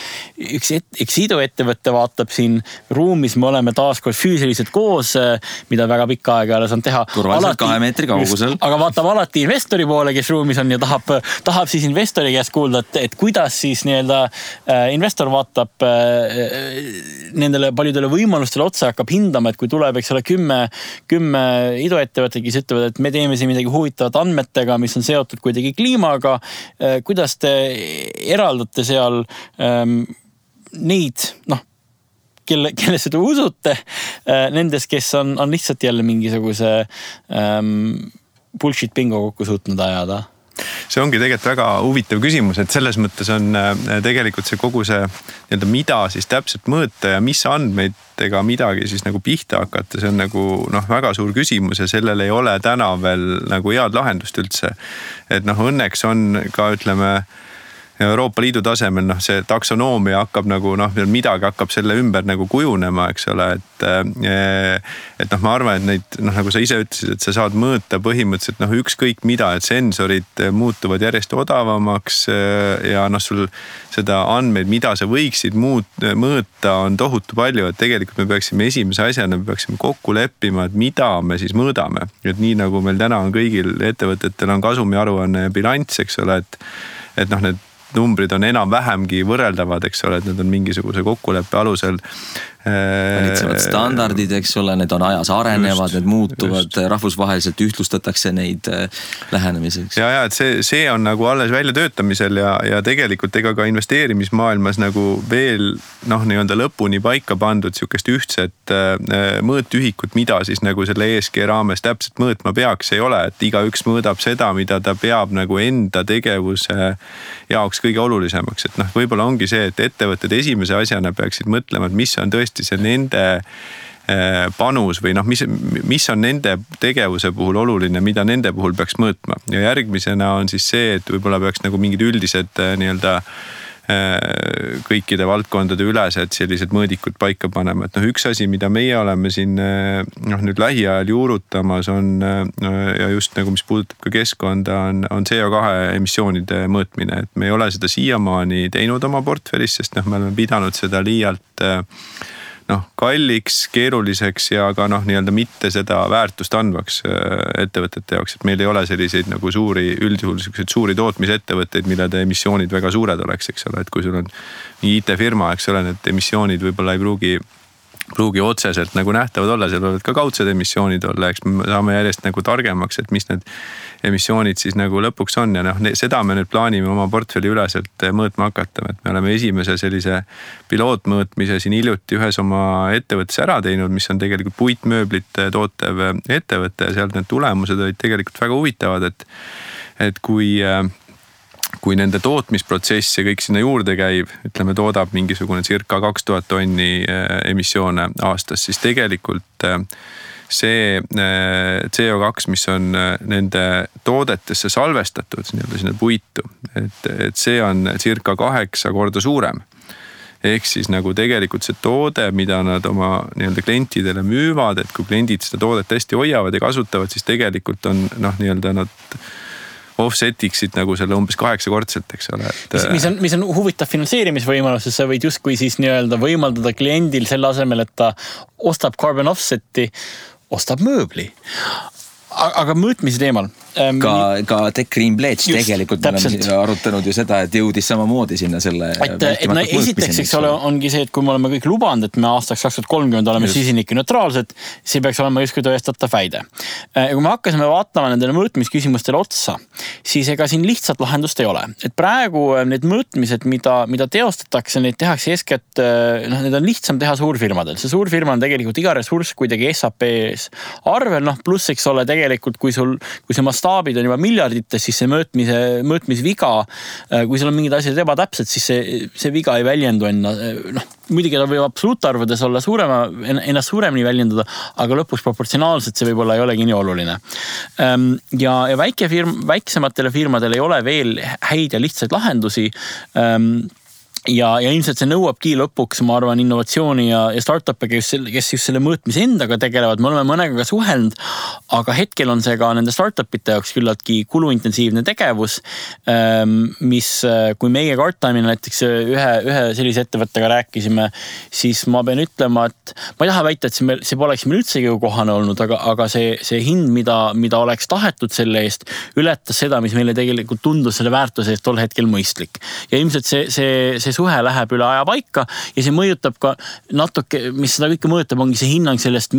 Speaker 3: üks iduettevõtte vaatab siin ruumis, me oleme taaskord füüsiliselt koos, mida väga pikka aega ei ole saanud teha.
Speaker 1: Turvaliselt 2 meetri kaugusel.
Speaker 3: Aga vaatab alati investori poole, kes ruumis on ja tahab siis investori käest kuulda, et kuidas siis nii-öelda investor vaatab nendele paljudele võimalustele otsa, hakkab hindama, et kui tuleb, eks ole, 10 iduettevõtted, kes ütlevad, et me teeme siin midagi huvitavat andmetega, mis on seotud kuidagi kliimaga. Kuidas te eraldate seal neid, kellesse te usute, nendes, kes on lihtsalt jälle mingisuguse bullshit bingo kokku suutnud ajada?
Speaker 2: See ongi tegelikult väga huvitav küsimus, et selles mõttes on tegelikult see kogu see nii-öelda mida siis täpselt mõõta ja mis andmeidega midagi siis nagu pihta hakata, see on nagu väga suur küsimus ja sellel ei ole täna veel nagu head lahendust üldse. Et õnneks on ka ütleme Euroopa Liidu tasemel see taksonoomia hakkab nagu midagi hakkab selle ümber nagu kujunema, eks ole, et ma arvan, et neid nagu sa ise ütlesid, et sa saad mõõta põhimõtteliselt ükskõik mida, et sensorid muutuvad järjest odavamaks ja sul seda andmeid, mida sa võiksid mõõta, on tohutu palju, et tegelikult me peaksime esimese asjana kokku leppima, et mida me siis mõõdame. Et nii nagu meil täna on kõigil ettevõtetel on kasumiaruanne ja bilanss, eks ole, et need numbrid on enam-vähemgi võrreldavad, eks ole, et need on mingisuguse kokkuleppe alusel.
Speaker 1: Valitsevad standardid, eks ole, need on ajas arenevad, need muutuvad, rahvusvaheliselt ühtlustatakse neid lähenemiseks.
Speaker 2: Ja, et see on nagu alles väljatöötamisel ja tegelikult ega ka investeerimismaailmas nagu veel nii-öelda lõpuni paika pandud siukest ühtset mõõtühikut, mida siis nagu selle ESG raames täpselt mõõtma peaks, ei ole, et igaüks mõõdab seda, mida ta peab nagu enda tegevuse jaoks kõige olulisemaks, et võib-olla ongi see, et ettevõtted esimese asjana peaksid mõtlema, et mis on tõesti see nende panus või mis on nende tegevuse puhul oluline, mida nende puhul peaks mõõtma. Ja järgmisena on siis see, et võib-olla peaks nagu mingid üldised nii-öelda kõikide valdkondade ülesed sellised mõõdikud paika panema. Et üks asi, mida meie oleme siin nüüd lähiajal juurutamas on ja just nagu mis puudutab ka keskkonda on CO2 emissioonide mõõtmine. Et me ei ole seda siiamaani teinud oma portfellis, sest me oleme pidanud seda liialt kalliks, keeruliseks ja ka nii-öelda mitte seda väärtust andvaks ettevõtete jaoks, et meil ei ole selliseid nagu üldjuhul suuri tootmisettevõtteid, millede emissioonid väga suured oleks, eks ole, et kui sul on IT-firma, eks ole, need emissioonid võib-olla ei pruugi otseselt nagu nähtavad olla, seal võivad ka kaudsed emissioonid olla, eks me saame järjest nagu targemaks, et mis need emissioonid siis nagu lõpuks on ja seda me nüüd plaanime oma portfelli üleselt mõõtma hakata, et me oleme esimese sellise pilootmõõtmise siin hiljuti ühes oma ettevõttes ära teinud, mis on tegelikult puitmööblit tootev ettevõte ja sealt need tulemused olid tegelikult väga huvitavad, et kui nende tootmisprotsess ja kõik sinna juurde käib, ütleme toodab mingisugune circa 2000 tonni emissioone aastas, siis tegelikult see CO2, mis on nende toodetesse salvestatud sinna puitu, et see on circa 8 korda suurem. Ehk siis nagu tegelikult see toode, mida nad oma nii-öelda klientidele müüvad, et kui kliendid seda toodet hästi hoiavad ja kasutavad, siis tegelikult on nii-öelda nad offsetiksid nagu selle umbes 8-kordselt, eks ole.
Speaker 3: Mis on huvitav finantseerimisvõimalus, sa võid justkui siis nii-öelda võimaldada kliendil selle asemel, et ta ostab carbon offseti, ostab mööbli. Aga mõõtmise teemal.
Speaker 1: Ka Tech Green Pledge tegelikult me oleme arutanud ju seda, et jõudis samamoodi sinna selle
Speaker 3: esiteks, eks ole, ongi see, et kui me oleme kõik lubanud, et me aastaks 2030 oleme süsinike neutraalsed, see peaks olema justkui tõestatav väide. Ja kui me hakkasime vaatama nendele mõõtmisküsimustele otsa, siis ega siin lihtsalt lahendust ei ole. Et praegu need mõõtmised, mida teostatakse, neid tehakse eeskätt, need on lihtsam teha suurfirmadel. See suurfirma on tegelikult iga ressurss kuidagi SAP-s arvel, pluss, eks ole, tegelikult kui see mastaabid on juba miljardites, siis see mõõtmisviga, kui seal on mingid asjad ebatäpsed, siis see viga ei väljendu muidugi ta võib absoluutarvudes olla ennast suuremini väljendada, aga lõpuks proportsionaalselt see võib-olla ei olegi nii oluline. Ja väiksematele firmadele ei ole veel häid ja lihtsaid lahendusi. ja ilmselt see nõuabki lõpuks, ma arvan, innovatsiooni ja startup'e, kes just selle mõõtmise endaga tegelevad. Me oleme mõnega ka suhelnud, aga hetkel on see ka nende startup'ite jaoks küllaltki kuluintensiivne tegevus, mis, kui meie Guardtime'ina näiteks ühe sellise ettevõttega rääkisime, siis ma pean ütlema, et ma ei taha väita, et see poleks meil üldsegi kohane olnud, aga see hind, mida oleks tahetud selle eest, ületas seda, mis meile tegelikult tundus selle väärtuse eest tol hetkel mõistlik. Ja ilmselt see suhe läheb üle aja paika ja see mõjutab ka natuke, mis seda kõike mõjutab, ongi see hinnang sellest,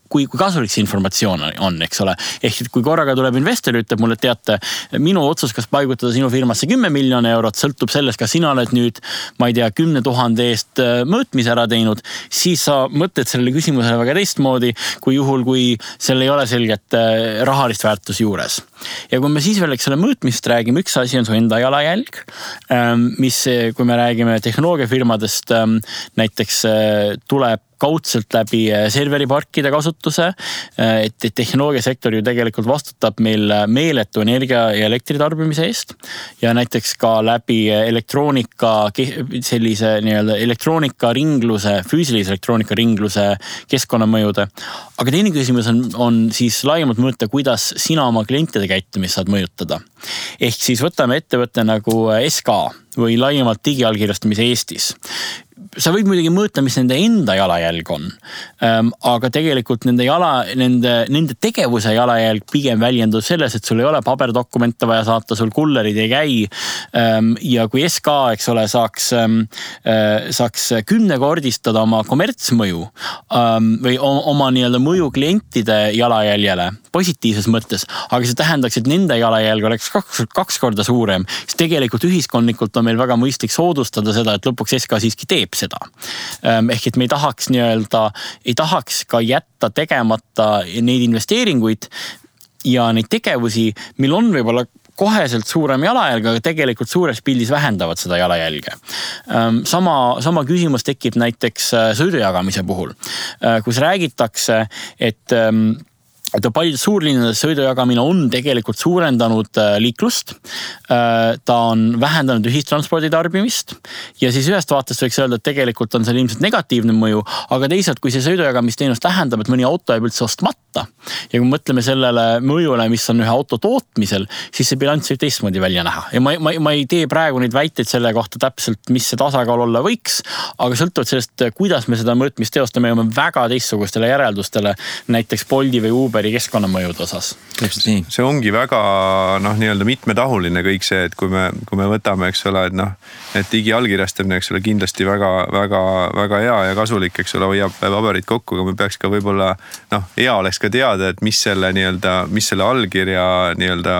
Speaker 3: kui kasulik see informatsioon on, eks ole. Ehk kui korraga tuleb investor ja ütleb mulle, et teate, minu otsus, kas paigutada sinu firmasse 10 miljoni eurot, sõltub sellest, kas sina oled nüüd, ma ei tea, 10 000 eest mõõtmise ära teinud, siis sa mõtled sellele küsimusele väga teistmoodi, kui juhul, kui seal ei ole selget rahalist väärtus juures. Ja kui me siis veel selle mõõtmist räägime, üks asi on su enda jalajälg, mis, kui me räägime tehnoloogiafirmadest, näiteks tuleb kaudselt läbi serveriparkide kasutuse, et tehnoloogiasektor ju tegelikult vastutab meil meeletu energia ja elektritarbimise eest ja näiteks ka läbi sellise nii-öelda elektroonikaringluse, füüsilise elektroonikaringluse keskkonnamõjude. Aga teine küsimus on siis laiemalt mõõta, kuidas sina oma klientide käitumist saad mõjutada. Ehk siis võtame ettevõtte nagu SK või laiemalt digiallkirjastamise Eestis. Sa võid muidugi mõõta, mis nende enda jalajälg on, aga tegelikult nende tegevuse jalajälg pigem väljendub selles, et sul ei ole paberdokumente vaja saata, sul kullerid ei käi ja kui SK, eks ole, saaks 10-kordistada oma kommertsmõju või oma nii-öelda mõju klientide jalajäljele positiivses mõttes, aga see tähendaks, et nende jalajälg oleks kaks korda suurem, siis tegelikult ühiskondlikult on meil väga mõistlik soodustada seda, et lõpuks SK siiski teeb seda. Ehk et me ei tahaks ka jätta tegemata neid investeeringuid ja neid tegevusi, mil on võib-olla koheselt suurem jalajälg, aga tegelikult suures pildis vähendavad seda jalajälge. Sama küsimus tekib näiteks sõidujagamise puhul, kus räägitakse, et paljudes suurlinnades sõidujagamine on tegelikult suurendanud liiklust, ta on vähendanud ühistranspordi tarbimist ja siis ühest vaatest võiks öelda, et tegelikult on seal ilmselt negatiivne mõju, aga teisalt, kui see sõidujagamisteenus tähendab, et mõni auto jääb üldse ostmata ja kui mõtleme sellele mõjule, mis on ühe auto tootmisel, siis see bilanss võib teistmoodi välja näha. Ja ma ei tee praegu neid väiteid selle kohta täpselt, mis see tasakaal olla võiks, aga sõltuvalt sellest, kuidas me seda mõõtmist teostame, jõuame väga teistsugustele järeldustele, näiteks Bolti või Uberi keskkonnamõjude osas.
Speaker 2: See ongi väga nii-öelda mitmetahuline kõik see, et kui me võtame, eks ole, et digiallkirjastamine, eks ole, kindlasti väga hea ja kasulik, eks ole, hoiab paberid kokku, aga me peaks ka võib-olla, hea oleks ka teada, et mis selle allkirja nii-öelda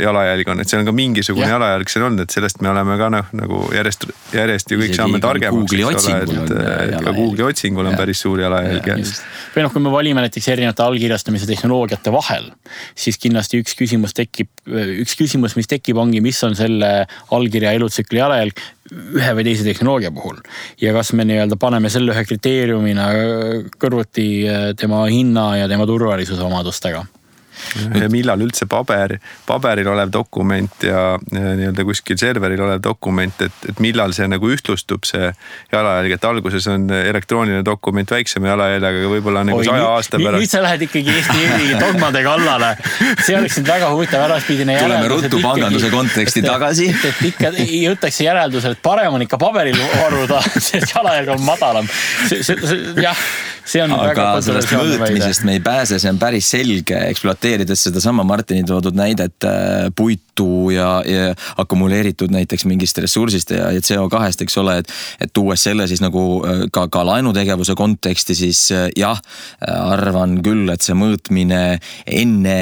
Speaker 2: jalajälg on, et see on ka mingisugune jalajälg seal on, et sellest me oleme ka nagu järjest ju kõik saame targemaks, et ka Google'i otsingul on päris suur jalajälg.
Speaker 3: Või kui me valime näiteks erinevate allkirjastamise tehnoloogiate vahel, siis kindlasti üks küsimus, mis tekib, ongi, mis on selle allkirja elutsükli jalajälg ühe või teise tehnoloogia puhul. Ja kas me nii-öelda paneme selle ühe kriteeriumina kõrvuti tema hinna ja tema turvalisuse omadustega.
Speaker 2: Ja millal üldse paberil olev dokument ja nii-öelda kuskil serveril olev dokument, et millal see nagu ühtlustub see jalajälg, et alguses on elektrooniline dokument väiksema jalajäljaga, aga võib-olla nagu 100 aasta pärast.
Speaker 3: Nüüd sa lähed ikkagi Eesti dogmade kallale. See oleks nüüd väga huvitav äraspidine järeldus.
Speaker 1: Tuleme ruttu panganduse konteksti tagasi.
Speaker 3: Et ikka jõutakse järeldusel, et parem on ikka paberil varuda, sest jalajälg on madalam. See on
Speaker 1: aga sellest mõõtmisest me ei pääse, see on päris selge, ekspluateerides seda sama Martini toodud näidet puitu ja akkumuleeritud näiteks mingist ressursist ja CO2-st, eks ole, et tuues selle siis nagu ka laenutegevuse konteksti, siis jah, arvan küll, et see mõõtmine enne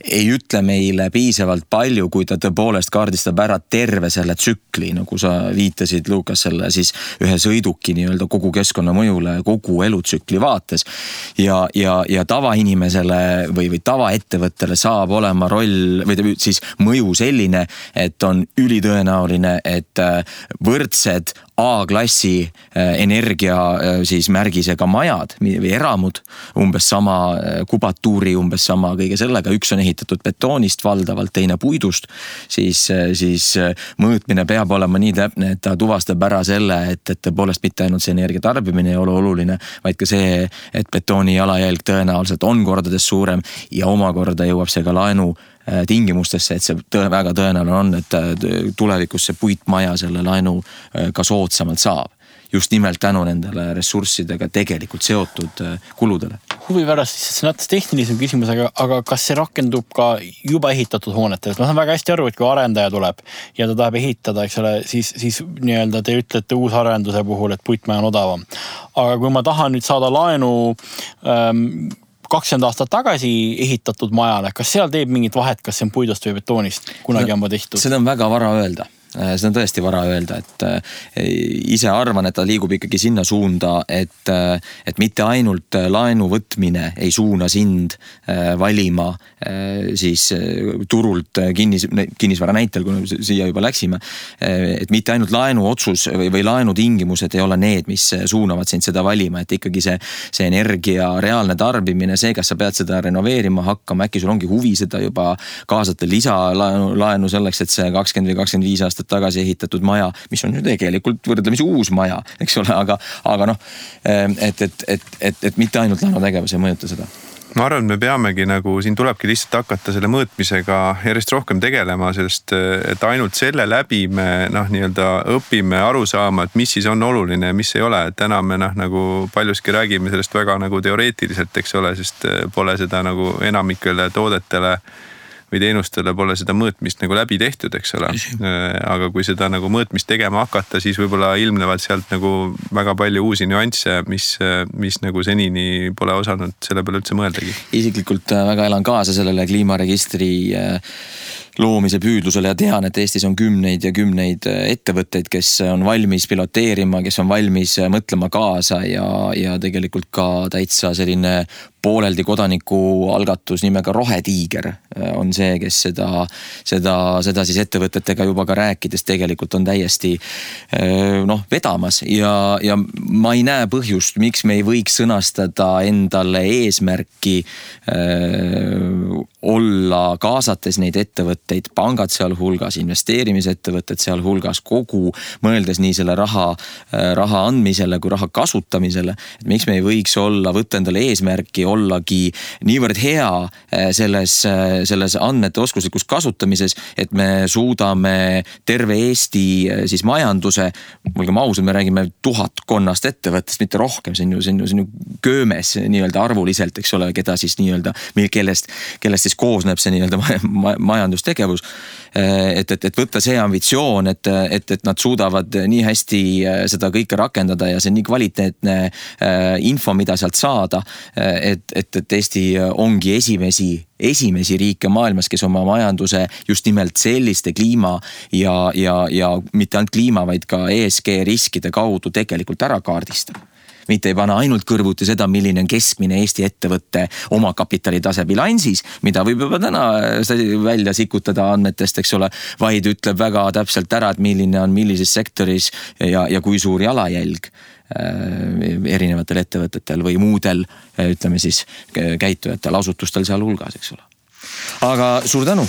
Speaker 1: ei ütle meile piisavalt palju, kui ta tõepoolest kaardistab ära terve selle tsükli, nagu sa viitasid, Lukas, selle siis ühe sõiduki nii-öelda kogu keskkonnamõjule, kogu elutsükli vaates ja tavainimesele või tavaettevõttele saab olema roll või siis mõju selline, et on ülitõenäoline, et võrdsed A-klassi energia siis märgisega majad või eramud, umbes sama kubatuuri, umbes sama kõige sellega, üks on ehitatud betoonist valdavalt, teine puidust, siis mõõtmine peab olema nii täpne, et ta tuvastab ära selle, et tõepoolest mitte ainult see energia tarbimine ei ole oluline, vaid ka see, et betooni jalajälg tõenäoliselt on kordades suurem ja omakorda jõuab see ka laenu tingimustesse, et see väga tõenäoline on, et tulevikus see puitmaja selle laenu ka soodsamalt saab. Just nimelt tänu nendele ressurssidega tegelikult seotud kuludele.
Speaker 3: Huvi pärast, see näitas tehnilisem küsimus, aga kas see rakendub ka juba ehitatud hoonetel? Ma saan väga hästi aru, et kui arendaja tuleb ja ta tahab ehitada, eks ole, siis nii-öelda te ütlete uusarenduse puhul, et puitmaja on odavam. Aga kui ma tahan nüüd saada laenu 20 aastat tagasi ehitatud majale, kas seal teeb mingit vahet, kas see on puidust või betoonist? Kunagi on tehtud.
Speaker 1: Seda on väga vara öelda. Seda on tõesti vara öelda, et ise arvan, et ta liigub ikkagi sinna suunda, et mitte ainult laenu võtmine ei suuna sind valima siis turult kinnisvara näitel, kui siia juba läksime, et mitte ainult laenu otsus või laenu tingimused ei ole need, mis suunavad sind seda valima, et ikkagi see energia reaalne tarbimine, see, kas sa pead seda renoveerima hakkama, äkki sul ongi huvi seda juba kaasata lisalaenu selleks, et see 20 või 25 aastat tagasi ehitatud maja, mis on ju tegelikult võrdlemisi uus maja, eks ole, aga noh, et mitte ainult laenutegevus ei mõjuta seda.
Speaker 2: Ma arvan, et me peamegi siin tulebki lihtsalt hakata selle mõõtmisega järjest rohkem tegelema, sest et ainult selle läbi me nii-öelda õpime aru saama, et mis siis on oluline ja mis ei ole. Täna me paljuski räägime sellest väga teoreetiliselt, eks ole, sest pole seda enamikele toodetele või teenustele pole seda mõõtmist läbi tehtud, eks ole. Aga kui seda mõõtmist tegema hakata, siis võib-olla ilmnevad sealt väga palju uusi nüansse, mis senini pole osanud selle peale üldse mõeldagi.
Speaker 1: Isiklikult väga elan kaasa sellele kliimaregistri loomise püüdlusele ja tean, et Eestis on kümneid ja kümneid ettevõtteid, kes on valmis piloteerima, kes on valmis mõtlema kaasa ja tegelikult ka täitsa selline pooleldi kodaniku algatus nimega Rohetiiger on see, kes seda siis ettevõtetega juba ka rääkides tegelikult on täiesti vedamas ja ma ei näe põhjust, miks me ei võiks sõnastada endale eesmärki olla kaasates neid ettevõtteid, pangad seal hulgas, investeerimisettevõtted seal hulgas, kogu mõeldes nii selle raha andmisele kui raha kasutamisele, et miks me ei võiks võtta endale eesmärki ollagi niivõrd hea selles andmete oskuslikus kasutamises, et me suudame terve Eesti siis majanduse, olgem ausad, me räägime 1000 ettevõttest, mitte rohkem, see on ju köömes nii-öelda arvuliselt, eks ole, keda siis nii-öelda, kellest siis koosneb see nii-öelda majandustegevus, et võtta see ambitsioon, et nad suudavad nii hästi seda kõike rakendada ja see on nii kvaliteetne info, mida sealt saada, et Eesti ongi esimesi riike maailmas, kes oma majanduse just nimelt selliste kliima ja mitte ainult kliima, vaid ka ESG riskide kaudu tegelikult ära kaardistab. Mitte ei pane ainult kõrvuti seda, milline on keskmine Eesti ettevõtte oma kapitalitase bilansis, mida võib juba täna välja sikutada andmetest, eks ole, vaid ütleb väga täpselt ära, et milline on millises sektoris ja kui suur jalajälg erinevatel ettevõtetel või muudel, ütleme siis, käitujatel, asutustel seal hulgas, eks ole. Aga suur tänu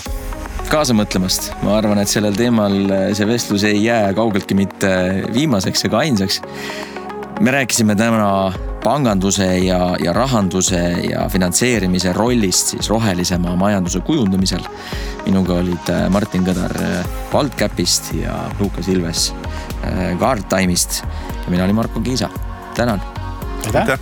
Speaker 1: kaasa mõtlemast. Ma arvan, et sellel teemal see vestlus ei jää kaugeltki mitte viimaseks ega ainsaks. Me rääkisime täna panganduse ja rahanduse ja finantseerimise rollist siis rohelisema majanduse kujundamisel. Minuga olid Martin Kõdar Waldcapist ja Lukas Ilves Guardtime'ist ja mina olin Marko Kiisa. Tänan!
Speaker 2: Aitäh!